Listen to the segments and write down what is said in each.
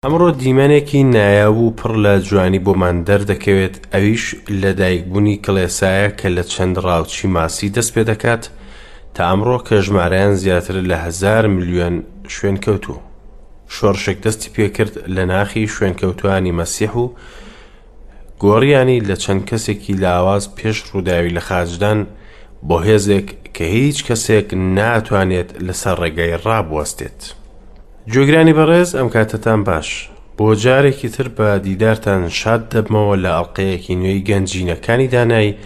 ئەمڕۆ دیمەنێکی نایاب و پڕ لە جوانی بۆمان دەردەکەوێت، ئەویش لەدایکبوونی کڵێسایە کە لە چەند ڕاوچی ماسی دەست پێدەکات تا ئەمڕۆ کە ژمارەیان زیاترە لە هەزار ملیۆن شوێنکەوتوو. شۆڕشێک دەستی پێکرد لە ناخی شوێنکەوتوانی مەسیح و گۆڕیانی لە چەند کەسێکی لاواز پێش ڕووداوی لەخاچدان بۆ هێزێک کە هیچ کەسێک ناتوانێت لەسەر ڕێگای ڕابوەستێت. گوێگرانی بەڕێز ئەم کاتەتان باش. بۆ جارێکی تر بە دیدارتان شاد دەبمەوە لە ئەڵقەیەکی نوێی گەنجینەکانی دانایی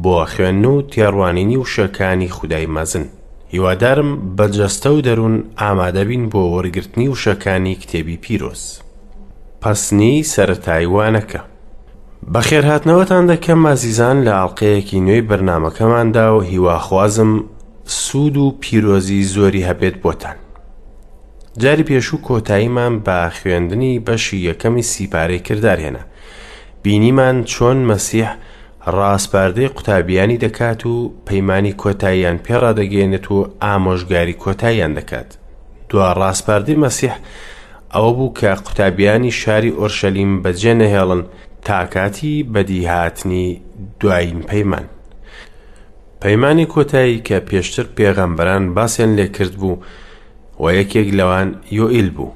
بۆ خوێندن و تێڕوانینی وشەکانی خودای مەزن. هیوادارم بە جەستە و دەروون ئامادەبین بۆ وەرگرتنی وشەکانی کتێبی پیرۆز. پەسنی سەرەتای وانەکە. بەخێرهاتنەوەتان دەکەم ئازیزان لە ئەڵقەیەکی نوێی بەرنامەکەماندا و هیواخوازم سوود و پیرۆزی زۆری هەبێت بۆتان. جاری پێشوو کۆتاییمان بە خوێندنی بەشی یەکەمی سیپارەی کردار هێنا. بینیمان چۆن مەسیح ڕاسپاردەی قوتابیانی دەکات و پەیمانی کۆتاییان پێ ڕادەگەیەنێت و ئامۆژگاری کۆتاییان دەکات. دوا ڕاسپاردەی مەسیح ئەوە بوو کە قوتابیانی شاری ئۆرشەلیم بەجێ نەهێڵن تا کاتی بەدیهاتنی دوایین پەیمان. پەیمانی کۆتایی کە پێشتر پێغەمبەران باسیان لێکرد بوو و یەکێک لەوان یۆئیل بوو.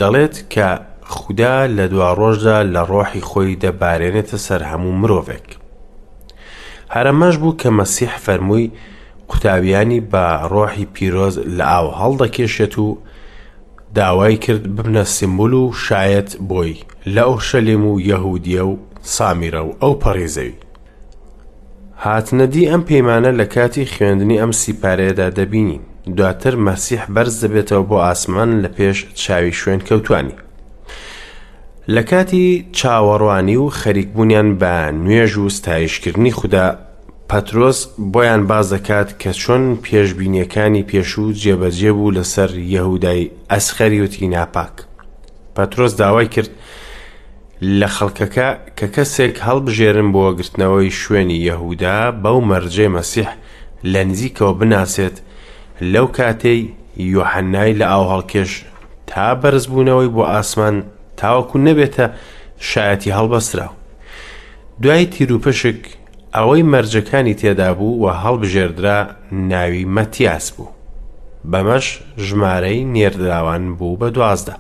دەڵێت کە خودا لە دواڕۆژدا لە ڕۆحی خۆی دەبارێنێتە سەر هەموو مرۆڤێک. هەر ئەمەش بوو کە مەسیح فەرمووی قوتابیانی بە ڕۆحی پیرۆز لە ئاو هەڵدەکێشێت و داوای کرد ببنە سیمبول و شایەت بۆی لە ئۆرشەلیم و یەهودیە و سامیرە و ئەو پەڕی زەوی. هاتنەدی ئەم پەیمانە لە کاتی خوێندنی ئەم سیپارەیەدا دەبینین. دواتر مەسیح بەرز دەبێتەوە بۆ ئاسمان لە پێش چاوی شوێنکەوتوانی. لە کاتی چاوەڕوانی و خەریکبوونیان بە نوێژ و ستایشکردنی خودا، پەترۆس بۆیان باس دەکات کە چۆن پێشبینیەکانی پێشوو جێبەجێ بوو لەسەر یەهودای ئەسخەریوتی ناپاک. پەترۆس داوای کرد لە خەڵکەکە کە کەسێک هەڵبژێرن بۆ گرتنەوەی شوێنی یەهودا بەو مەرجەی مەسیح لە نزیکەوە بناسێت لەو کاتەی یۆحەنای لە ئاو هەڵکێش تا بەرزبوونەوەی بۆ ئاسمان تاوەکو نەبێتە شایەتی هەڵبەستراو. دوای تیروپشک ئەوەی مەرجەکانی تێدا بوو و هەڵبژێردرا ناوی مەتیاس بوو. بەمەش ژمارەی نێردراوان بوو بە 12.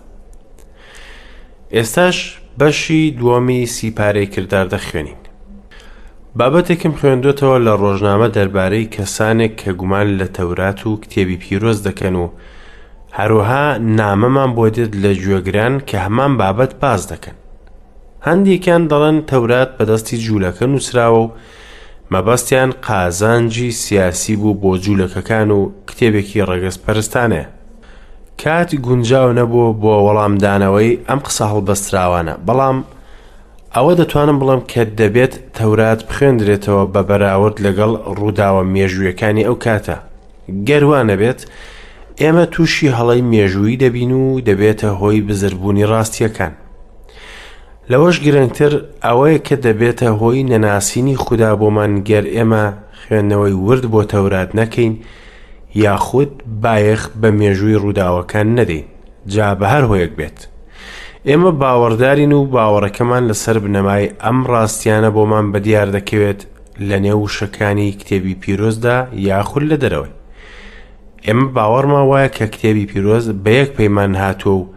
ئێستاش بەشی دووەمی سیپارەی کردار دەخوێنین. بابەتێکم خوێندوەتەوە لە ڕۆژنامە دەربارەی کەسانێک کە گومان لە تەورات و کتێبی پیرۆز دەکەن و هەروەها نامەمان بۆ دێت لە گوێگران کە هەمان بابەت باس دەکەن. هەندێکیان دەڵێن تەورات بەدەستی جوولەکە نووسراوە و مەبەستیان قازانجی سیاسی بوو بۆ جوولەکەکان و کتێبێکی ڕەگەزپەرستانەیە. کات گونجاو نەبوو بۆ وەڵامدانەوەی ئەم قسە هەڵبەستراوانە، بەڵام ئەوە دەتوانم بڵێم کە دەبێت تەورات بخوێندرێتەوە بە بەراورد لەگەڵ ڕووداوە مێژوویەکانی ئەو کاتە. گەر وا نەبێت، ئێمە تووشی هەڵەی مێژوویی دەبین و دەبێتە هۆی بزربوونی ڕاستییەکان. لەوەش گرنگتر ئەوەیە کە دەبێتە هۆی نەناسینی خودا بۆمان گەر ئێمە خوێندنەوەی ورد بۆ تەورات نەکەین یاخود بایەخ بە مێژووی ڕووداوەکان نەدەین جا بە هەر هۆیەک بێت. ئێمە باوەڕدارین و باوەڕەکەمان لەسەر بنەمای ئەم ڕاستیانە بۆمان بەدیار دەکەوێت لە نێو وشەکانی کتێبی پیرۆزدا یاخود لە دەرەوەی. ئێمە باوەڕمان وایە کە کتێبی پیرۆز بە یەک پەیمان هاتووە و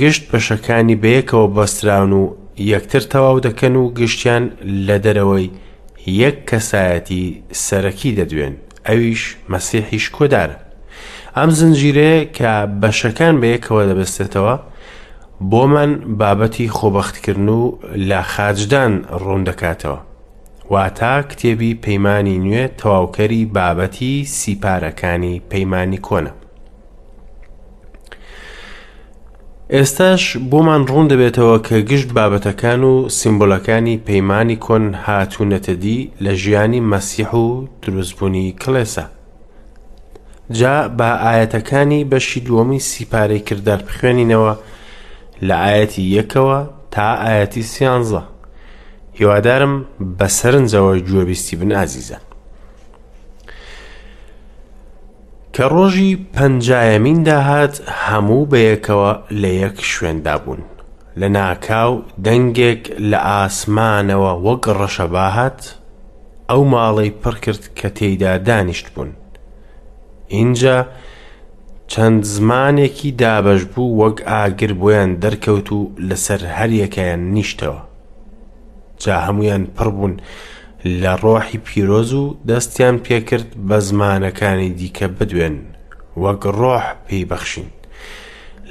گشت بەشەکانی بەیەکەوە بەستراون و یەکتر تەواو دەکەن و گشتیان لە دەرەوەی یەک کەسایەتی سەرەکی دەدوێن ئەویش مەسیحی شکۆدارە. ئەم زنجیرەیە کە بەشەکان بەیەکەوە دەبەستێتەوە بۆمان بابەتی خۆبەختکردن و لە خاچدان ڕوون دەکاتەوە. واتا کتێبی پەیمانی نوێ تەواوکەری بابەتی سیپارەکانی پەیمانی کۆنە. ئێستاش بۆمان ڕوون دەبێتەوە کە گشت بابەتەکان و سیمبولەکانی پەیمانی کۆن هاتوونەتە دی لە ژیانی مەسیح و دروستبوونی کڵێسا. جا با ئایەتەکانی بەشی دووەمی سیپارەی کردار بخوێنینەوە لە ئایەتی یەکەوە تا ئایەتی سیانزە. هیوادارم بە سەرنجەوە گوێبیستی بن ئازیزان. کە ڕۆژی پەنجایەمین داهات هەموو بەیەکەوە لە یەک شوێندا بوون. لەناکاو دەنگێک لە ئاسمانەوە وەک ڕەشەبا هات، ئەو ماڵەی پڕکرد کە تێیدا دانیشتبوون. ئینجا چەند زمانێکی دابەشبوو وەک ئاگر بۆیان دەرکەوت و لەسەر هەریەکەیان نیشتەوە. جا هەموویان پڕ بوون لە ڕۆحی پیرۆز و دەستیان پێکرد بە زمانەکانی دیکە بدوێن وەک ڕۆح پێی بەخشین.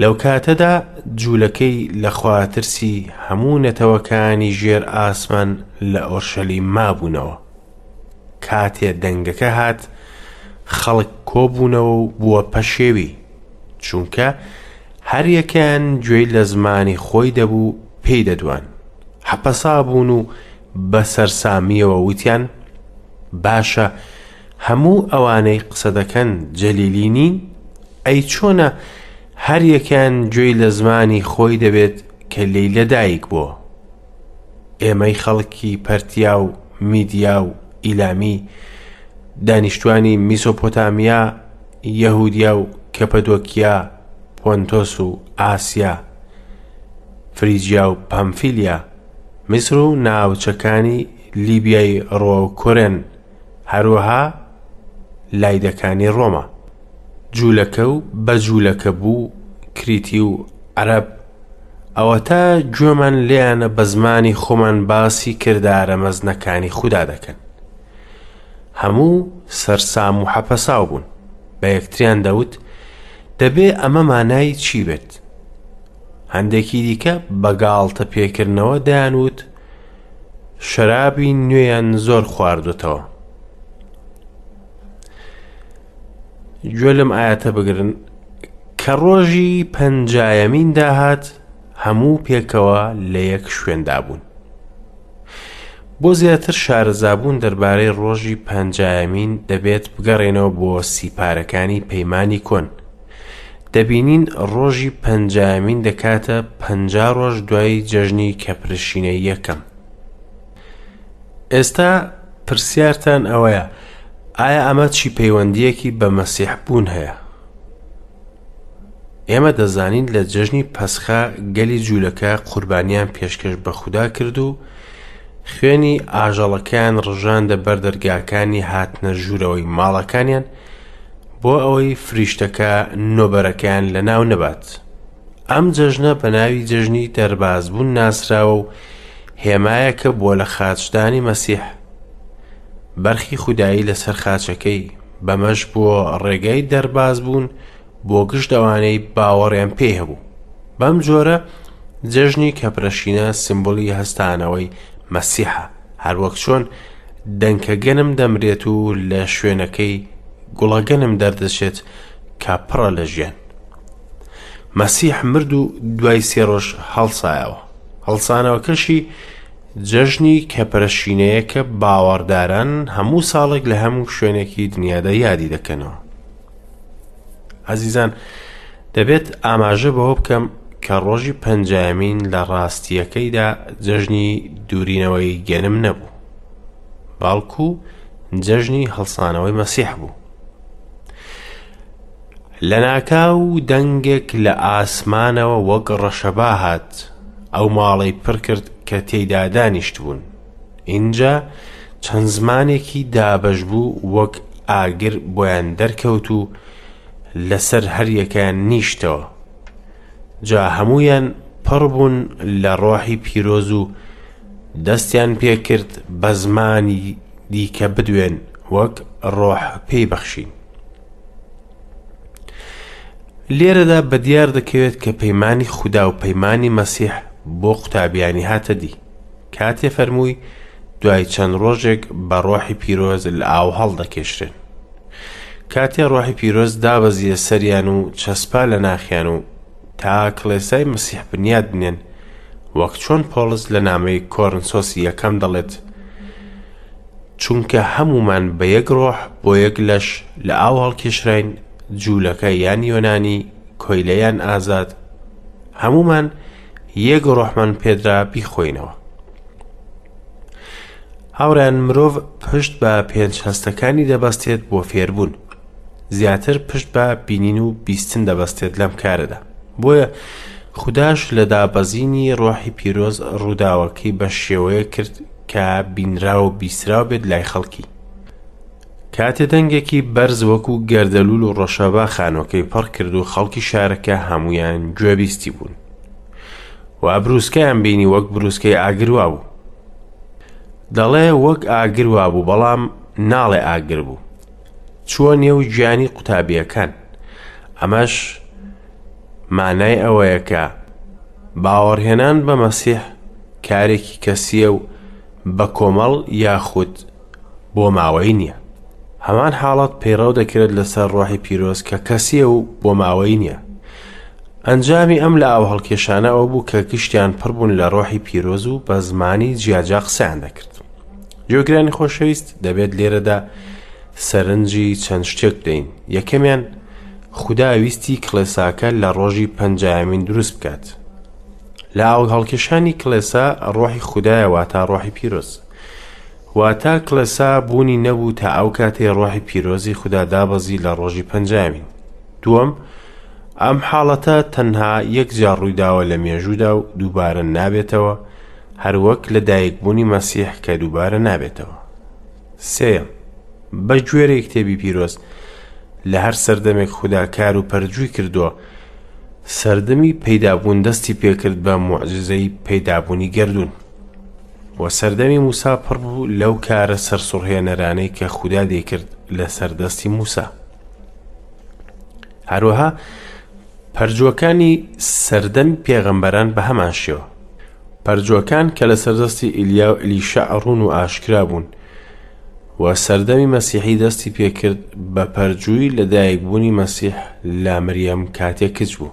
لەو کاتەدا جوولەکەی لەخواترسی هەموو نەتەوەکانی ژێر ئاسمان لە ئۆرشەلیم مابوونەوە. کاتێ دەنگەکە هات، خەڵک کۆبوونەوە و بووە پەشێوی، چونکە هەریەکەیان گوێی لە زمانی خۆی دەبوو پێی دەدوان. حەپەسا بوون و بە سەرسامییەوە وتیان، باشە هەموو ئەوانەی قسە دەکەن جەلیلی نین؟ ئەی چۆنە هەریەکەیان گوێی لە زمانی خۆی دەبێت کە لێی لەدایک بووە؟ ئێمەی خەڵکی پەرتیا و میدیا و ئیلامی، دانیشتوانی میسۆپۆتامیا، یەهودیا و کەپەدۆکیا، پۆنتۆس و ئاسیا، فریجیا و پامفیلیا، میسر و ناوچەکانی لیبیای ڕووەو کۆرێن، هەروەها لایدەکانی ڕۆما. جوولەکە و بەجوولەکە بوو، کریتی و عەرەب، ئەوەتا گوێمان لێیانە بە زمانی خۆمان باسی کردارە مەزنەکانی خودا دەکەن. هەموو سەرسام و حەپەساو بوون، بە یەکتریان دەوت، دەبێ ئەمە مانای چی بێت؟ هەندێکی دیکە بە گاڵتە پێکردنەوە دەیانوت، شەرابی نوێیان زۆر خواردوتەوە. گوێ لەم ئاەتە بگرن کە ڕۆژی پەنجایەمین داهات هەموو پێکەوە لە یەک شوێندا بوون. بۆ زیاتر شارەزابوون دەربارەی ڕۆژی پەنجایەمین دەبێت بگەڕێنەوە بۆ سیپارەکانی پەیمانی کۆن. دەبینین ڕۆژی پەنجایەمین دەکاتە 50 ڕۆژ دوای جەژنی کەپرشینەی یەکەم. ئێستا پرسیارتان ئەوەیە ئایا ئەمە چی پەیوەندییەکی بە مەسیح بوون هەیە؟ ئێمە دەزانین لە جەژنی پەسخە گەلی جوولەکە قوربانیان پێشکەش بە خودا کرد و خوێنی ئاژەڵەکەیان ڕژاندە بەر دەرگاکانی هاتنە ژوورەوەی ماڵەکانیان بۆ ئەوەی فریشتەکە نۆبەرەکەیان لەناو نەبات. ئەم جەژنە بە ناوی جەژنی دەربازبوون ناسراوە و هێمایەکە بۆ لە خاچدانی مەسیح. بەرخی خودایی لەسەر خاچەکەی، بەمەش بۆ ڕێگای دەربازبوون بۆ گشت ئەوانەی باوەڕیان پێی هەبوو. بەم جۆرە جەژنی کەپرەشینە سیمبولی هەستانەوەی مەسیحە، هەروەک چۆن دەنکە گەنم دەمرێت و لە شوێنەکەی گوڵە گەنم دەردەچێت کە پڕە لە ژیان. مەسیح مرد و دوای سێ ڕۆژ هەڵسایەوە. هەڵسانەوەکەشی جەژنی کەپرەشینەیە کە باوەڕداران هەموو ساڵێک لە هەموو شوێنێکی دنیادا یادی دەکەنەوە. ئازیزان دەبێت ئاماژە بەوە بکەم کە ڕۆژی پەنجایەمین لە ڕاستییەکەیدا جەژنی دوورینەوەی گەنم نەبوو، بەڵکو جەژنی هەڵسانەوەی مەسیح بوو. لەناکاو دەنگێک لە ئاسمانەوە وەک ڕەشەبا هات، ئەو ماڵەی پڕ کرد کە تێیدا دانیشتبوون. ئینجا چەند زمانێکی دابەشبوو وەک ئاگر بۆیان دەرکەوت و لەسەر هەریەکەیان نیشتەوە. جا هەموویان پڕ بوون لە ڕۆحی پیرۆز و دەستیان پێکرد بە زمانی دیکە بدوێن وەک ڕۆح پێی بەخشین. لێرەدا بەدیار دەکەوێت کە پەیمانی خودا و پەیمانی مەسیح بۆ قوتابیانی هاتە دی کاتێ فەرمووی دوای چەند ڕۆژێک بە ڕۆحی پیرۆز لە ئاو هەڵدەکێشرێن. کاتێ ڕۆحی پیرۆز دابەزیە سەریان و چەسپا لە ناخیان و تا کڵێسای مەسیح بنیاد بنێن، وەک چۆن پۆڵس لە نامەی کۆرنسۆسی یەکەم دەڵێت، چونکە هەموومان بە یەک ڕۆح بۆ یەک لەش لە ئاو هەڵکێشراین، جوولەکە یان یۆنانی، کۆیلە یان ئازاد، هەموومان یەک ڕۆحمان پێدرا بیخۆینەوە. هاوڕێیان مرۆڤ پشت بە پێنج هەستەکانی دەبەستێت بۆ فێربوون. زیاتر پشت بە بینین و بیستن دەبەستێت لەم کارەدا. بۆیە خوداش لە دابەزینی ڕۆحی پیرۆز ڕووداوەکەی بە شێوەیەک کرد کە بینراو و بیستراو بێت لای خەڵکی. کاتێ دەنگێکی بەرز وەکو گەردەلوول و ڕەشەبا خانووەکەی پڕ کرد و خەڵکی شارەکە هەموویان گوێبیستی بوون و بروسکەیان بینی وەک بروسکەی ئاگر وابوو. دەڵێ وەک ئاگر وابوو بەڵام ناڵێ ئاگر بوو. چووە نێو گیانی قوتابییەکان. ئەمەش مانای ئەوەیە کە باوەڕهێنان بە مەسیح کارێکی کەسییە و بە کۆمەڵ یاخود بۆ ماوەی نییە. هەمان حاڵەت پەیڕەو دەکرێت لەسەر ڕۆحی پیرۆز کە کەسییە و بۆ ماوەی نییە. ئەنجامی ئەم لە ئاو هەڵکێشانە ئەوە بوو کە گشتیان پڕ بوون لە ڕۆحی پیرۆز و بە زمانی جیاجیا قسەیان دەکرد. گوێگرانی خۆشەویست دەبێت لێرەدا سەرنجی چەند شتێک بدەین. یەکەمیان خودا ویستی کڵێساکە لە ڕۆژی پەنجایەمین دروست بکات. لە ئاو هەڵکێشانی کڵێسا ڕۆحی خودایە واتا ڕۆحی پیرۆز. واتا کڵێسا بوونی نەبوو تا ئەو کاتەی ڕۆحی پیرۆزی خودا دابەزی لە ڕۆژی پەنجایەمین. دووەم، ئەم حاڵەتە تەنها یەک جار ڕوویداوە لە مێژوودا و دووبارە نابێتەوە، هەروەک لە دایکبوونی مەسیح کە دووبارە نابێتەوە. سێیەم، بە گوێرەی کتێبی پیرۆز، لە هەر سەردەمێک خودا کار و پەرجووی کردووە، سەردەمی پەیدابوون دەستی پێکرد بە موعجیزەی پەیدابوونی گەردوون. و سەردەمی موسا پڕ بوو لەو کارە سەرسوڕهێنەرانەی کە خودا دەیکرد لەسەر دەستی موسا. هەروەها پەرجووەکانی سەردەمی پێغەمبەران بە هەمان شێوە. پەرجووەکان کە لەسەر دەستی ئیلیا و ئەلیشەع ڕوون و ئاشکرا بوون و سەردەمی مەسیحی دەستی پێکرد بە پەرجووی لەدایکبوونی مەسیح لە مریەم کاتێک کچ بوو.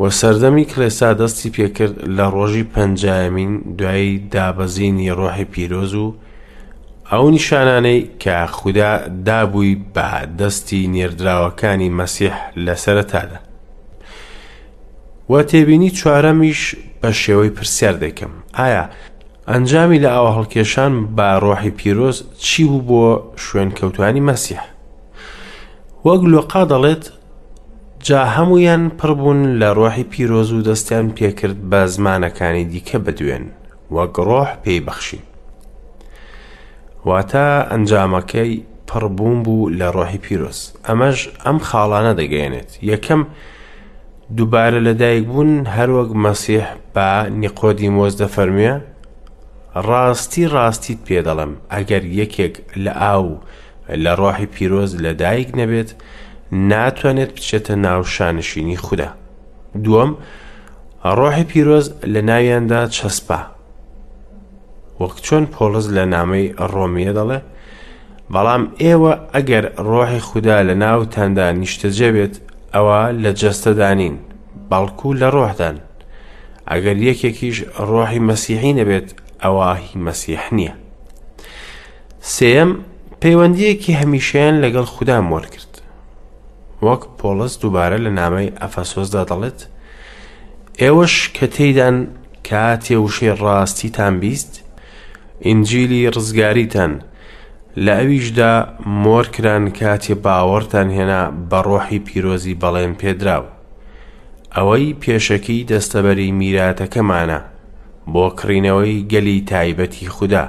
و سەردەمی کڵێسا دەستی پێکرد لە ڕۆژی پەنجایەمین دوای دابەزینی ڕۆحی پیرۆز و ئەو نیشانانەی کە خودا دابووی بە دەستی نێردراوەکانی مەسیح لە سەرەتادا. و تێبینی چوارەمیش بە شێوەی پرسیار دەیکەم، ئایا ئەنجامی لە ئاوهەڵکێشان بە ڕۆحی پیرۆز چی بوو بۆ شوێنکەوتوانی مەسیح؟ وەک لۆقا دەڵێت، جا هەموویان پڕ بوون لە ڕۆحی پیرۆز و دەستیان پێکرد بە زمانەکانی دیکە بدوێن، وەک ڕۆح پێی بەخشین. واتە ئەنجامەکەی پڕبوون بوو لە ڕۆحی پیرۆز. ئەمەش ئەم خاڵانە دەگەیەنێت. یەکەم، دووبارە لەدایکبوون هەروەک مەسیح بە نیقۆدیمۆس دەفەرموێ، ڕاستی ڕاستیت پێ دەڵێم، ئەگەر یەکێک لە ئاو و لە ڕۆحی پیرۆز لەدایک نەبێت، ناتوانێت بچێتە ناو شانشینی خودا. دووەم، ڕۆحی پیرۆز لە ناویاندا چەسپا. وەک چۆن پۆڵس لە نامەی ڕۆمیە دەڵێ، بەڵام ئێوە ئەگەر ڕۆحی خودا لە ناوتاندا نیشتەجێ بێت، ئەوە لە جەستەدا نین، بەڵکو لە ڕۆحدان. ئەگەر یەکێکیش ڕۆحی مەسیحی نەبێت، ئەوا هی مەسیح نییە. سێیەم، پەیوەندییەکی هەمیشەیان لەگەڵ خودا مۆر کرد. وەک پۆڵس دووبارە لە نامەی ئەفەسۆسدا دەڵێت، ئێوەش کە تێیدان کاتێ وشەی ڕاستیتان بیست، ئینجیلی ڕزگاریتان، لە ئەویشدا مۆر کران کاتێ باوەڕتان هێنا بە ڕۆحی پیرۆزی بەڵێن پێدراو، ئەوەی پێشەکی دەستەبەری میراتەکەمانە بۆ کڕینەوەی گەلی تایبەتی خودا،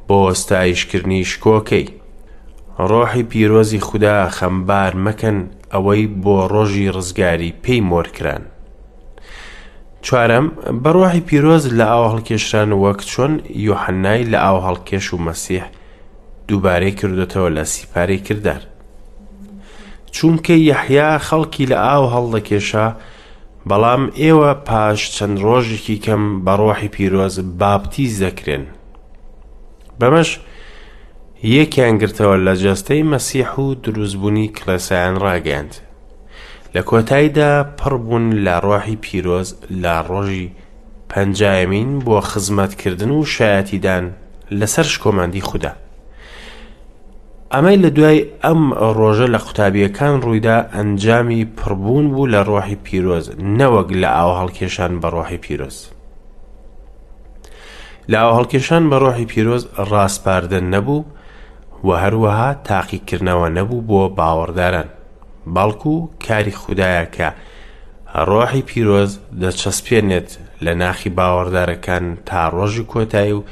بۆ ستایشکردنی شکۆکەی. ڕۆحی پیرۆزی خودا خەمبار مەکەن ئەوەی بۆ ڕۆژی ڕزگاری پێی مۆر کران. چوارەم، بە ڕۆحی پیرۆز لە ئاو هەڵکێشران وەک چۆن یۆحەنای لە ئاو هەڵکێش و مەسیح دووبارەی کردوتەوە لە سیپارەی کردار. چونکە یەحیا خەڵکی لە ئاو هەڵدەکێشا، بەڵام ئێوە پاش چەند ڕۆژێکی کەم بە ڕۆحی پیرۆز باپتیز دەکرێن. بەمەش یەکیان گرتەوە لە جەستەی مەسیح و دروستبوونی کڵێسایان ڕاگەیاند. لە کۆتاییدا پڕ بوون لە ڕۆحی پیرۆز لە ڕۆژی پەنجایەمین بۆ خزمەتکردن و شایەتیدان لەسەر شکۆمەندی خودا. ئەمەی لە دوای ئەم ڕۆژە لە قوتابییەکان ڕوویدا ئەنجامی پڕبوون بوو لە ڕۆحی پیرۆز نەوەک لە ئاو هەڵکێشان بە ڕۆحی پیرۆز. لە ئاو هەڵکێشان بە ڕۆحی پیرۆز ڕاسپاردە نەبوو و هەروەها تاقیکردنەوە نەبوو بۆ باوەڕداران، بەڵکو کاری خودایە کە ڕۆحی پیرۆز دەچەسپێنێت لە ناخی باوەڕدارەکان تا ڕۆژی کۆتایی و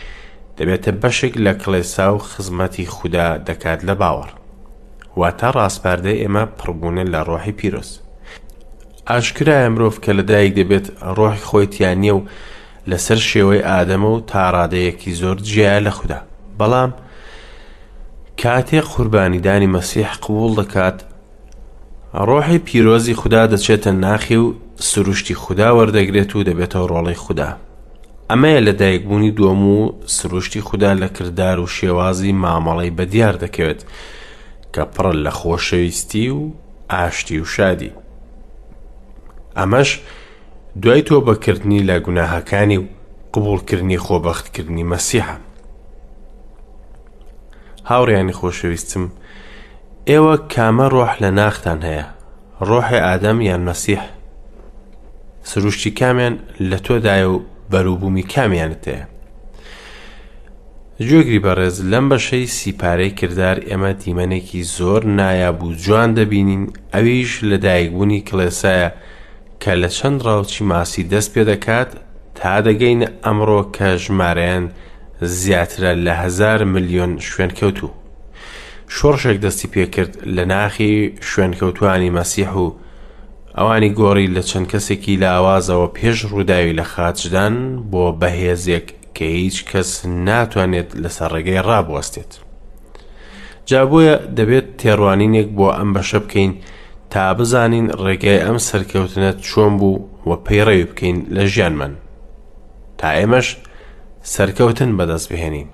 دەبێتە بەشێک لە کڵێسا و خزمەتی خودا دەکات لە باوەڕ. واتە ڕاسپاردەی ئێمە پڕبوونە لە ڕۆحی پیرۆز. ئاشکرایە مرۆڤ کە لەدایک دەبێت ڕۆحی خۆی تیا نییە و لەسەر شێوەی ئادەمە و تا ڕادەیەکی زۆر جیایە لە خودا. بەڵام کاتێک قوربانیدانی مەسیح قبوڵ دەکات، ڕۆحی پیرۆزی خودا دەچێتە ناخی و سروشتی خودا وەردەگرێت و دەبێتە ڕۆڵەی خودا. ئەمەیە لەدایکبوونی دووەم و سروشتی خودا لە کردار و شێوازی مامەڵەی بەدیار دەکەوێت کە پڕە لە خۆشەویستی و ئاشتی و شادی. ئەمەش دوای تۆبەکردنی لە گوناهەکانی و قبوڵکردنی خۆبەختکردنی مەسیحە. هاوڕێیانی خۆشەویستم، ئێوە کامە ڕۆح لە ناختان هەیە؟ ڕۆحی ئادەم یان مەسیح؟ سروشتی کامیان لە تۆدایە و بەروبوومی کامیانت هەیە؟ گوێگری بەڕێز لەم بەشەی سیپارەی کردار ئێمە دیمەنێکی زۆر نایاب و جوان دەبینین ئەویش لەدایکبوونی کڵێسایە کە لە چەند ڕاوچی ماسی دەست پێ دەکات تا دەگەینە ئەمڕۆ کە ژمارەیان زیاترە لە هەزار ملیۆن شوێنکەوتوو. شۆڕشێک دەستی پێکرد لە ناخی شوێنکەوتوانی مەسیح و ئەوانی گۆڕی لە چەند کەسێکی لاوازەوە پێش ڕووداوی لە خاچدان بۆ بەهێزێک کە هیچ کەس ناتوانێت لەسەر ڕێگەی ڕابوەستێت. جا بۆیە دەبێت تێڕوانینێک بۆ ئەم بەشە بکەین تا بزانین ڕێگای ئەم سەرکەوتنە چۆن بوو و پەیڕەوی بکەین لە ژیانمان تا ئێمەش سەرکەوتن بەدەست بهێنین.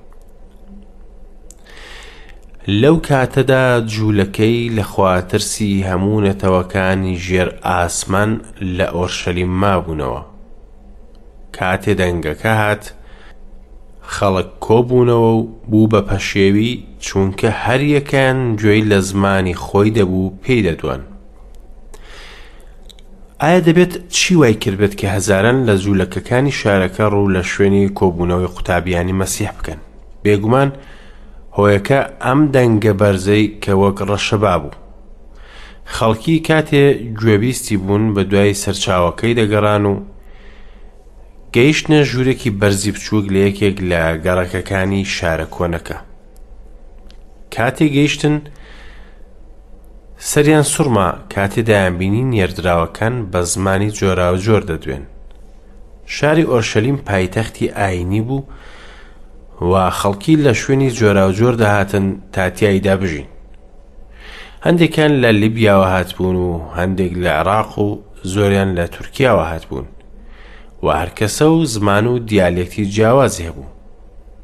لەو کاتەدا جوولەکەی لە خواترسی هەموو نەتەوەکانی ژێر ئاسمان لە ئۆرشەلیم مابوونەوە. کاتێ دەنگەکە هات، خەڵک کۆبوونەوە و بوو بە پەشێوی، چونکە هەریەکەیان گوێی لە زمانی خۆی دەبوو پێی دەدوان. ئایا دەبێت چی وای کردبێت کە هەزاران لە جوولەکەکانی شارەکە ڕوو لە شوێنی کۆبوونەوەی قوتابیانی مەسیح بکەن؟ بێگومان هۆیەکە ئەم دەنگە بەرزەی کە وەک ڕەشەبا بوو. خەڵکی کاتێ گوێبیستی بوون بە دوای سەرچاوەکەی دەگەڕان و گەیشتنە ژوورێکی بەرزی بچووک لە یەکێک لە گەڕەکەکانی شارە کۆنەکە. کاتێ گەیشتن سەریان سوڕما کاتێ دەیانبینی نێردراوەکان بە زمانی جۆراوجۆر دەدوێن. شاری ئۆرشەلیم پایتەختی ئایینی بوو و خەڵکی لە شوێنی جۆراوجۆر دەهاتن تا تیایدا بژین. هەندێکیان لە لیبیاوە هاتبوون و هەندێک لە عێراق و زۆریان لە تورکیاوە هاتبوون و هەرکەسە و زمان و دیالێکتی جیاوازی هەبوو.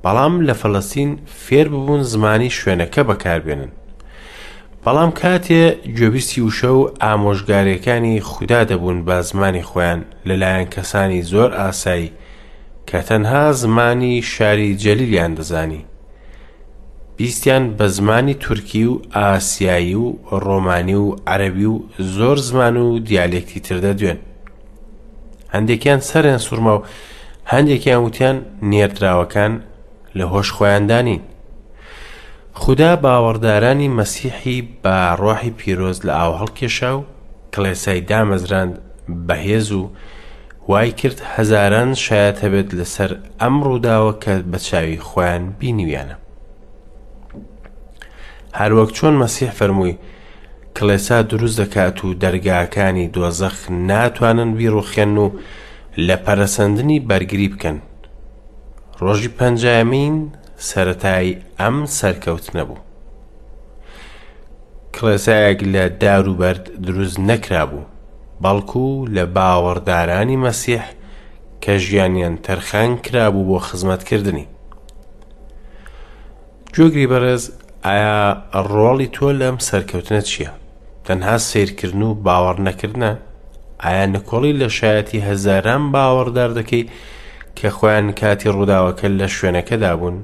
بەڵام لە فەلەستین فێر ببوون زمانی شوێنەکە بەکاربێنن. بەڵام کاتێ گوێبیستی وشە و ئامۆژگاریەکانی خودا دەبوون بە زمانی خۆیان لەلایەن کەسانی زۆر ئاسایی کە تەنها زمانی شاری جەلیلیان دەزانی بیستیان بە زمانی تورکی و ئاسیایی و ڕۆمانی و عەرەبی و زۆر زمان و دیالێکتی تر دەدوێن. هەندێکیان سەریان سوڕما و هەندێکیان وتیان نێردراوەکان لە هۆش خۆیاندا نین. خودا باوەڕدارانی مەسیحی بە ڕۆحی پیرۆز لە ئاو هەڵکێشا و کڵێسای دامەزراند بەهێز و وای کرد هەزاران شایەت هەبێت لەسەر ئەم ڕووداوە کە بە چاوی خۆیان بینیویانە. هەروەک چۆن مەسیح فەرمووی کڵێسا دروست دەکات و دەرگاکانی دۆزەخ ناتوانن بیڕوخێن و لە پەرەسەندنی بەرگری بکەن. ڕۆژی پەنجایەمین سەرەتای ئەم سەرکەوتنە بوو. کڵێسایەک لە دار و بەرد دروست نەکرابوو، بەڵکو لە باوەڕدارانی مەسیح کە ژیانیان تەرخان کرابوو بۆ خزمەتکردنی. گوێگری بەڕێز، ئایا ڕۆڵی تۆ لەم سەرکەوتنە چییە؟ تەنها سەیرکردن و باوەڕ نەکردنە؟ ئایا نکۆڵی لە شایەتی هەزاران باوەڕدار دەکەی کە خۆیان کاتی ڕووداوەکە لە شوێنەکەدا بوون؟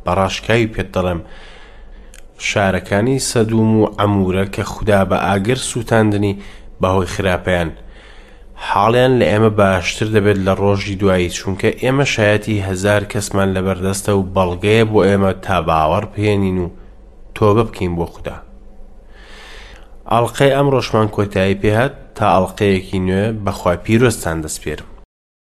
بە ڕاشکاوی پێت دەڵێم شارەکانی سەدوم و عەمورە کە خودا بە ئاگر سووتاندنی بەهۆی خراپەیان، حاڵیان لە ئێمە باشتر دەبێت لە ڕۆژی دوایی چونکە ئێمە شایەتی هەزار کەسمان لەبەردەستە و بەڵگەیە بۆ ئێمە تا باوەڕ بهێنین و تۆبە بکەین بۆ خودا. ئەڵقەی ئەمڕۆشمان کۆتایی پێهات. تا ئەڵقەیەکی نوێ بەخوای پیرۆزتان دەسپێرم.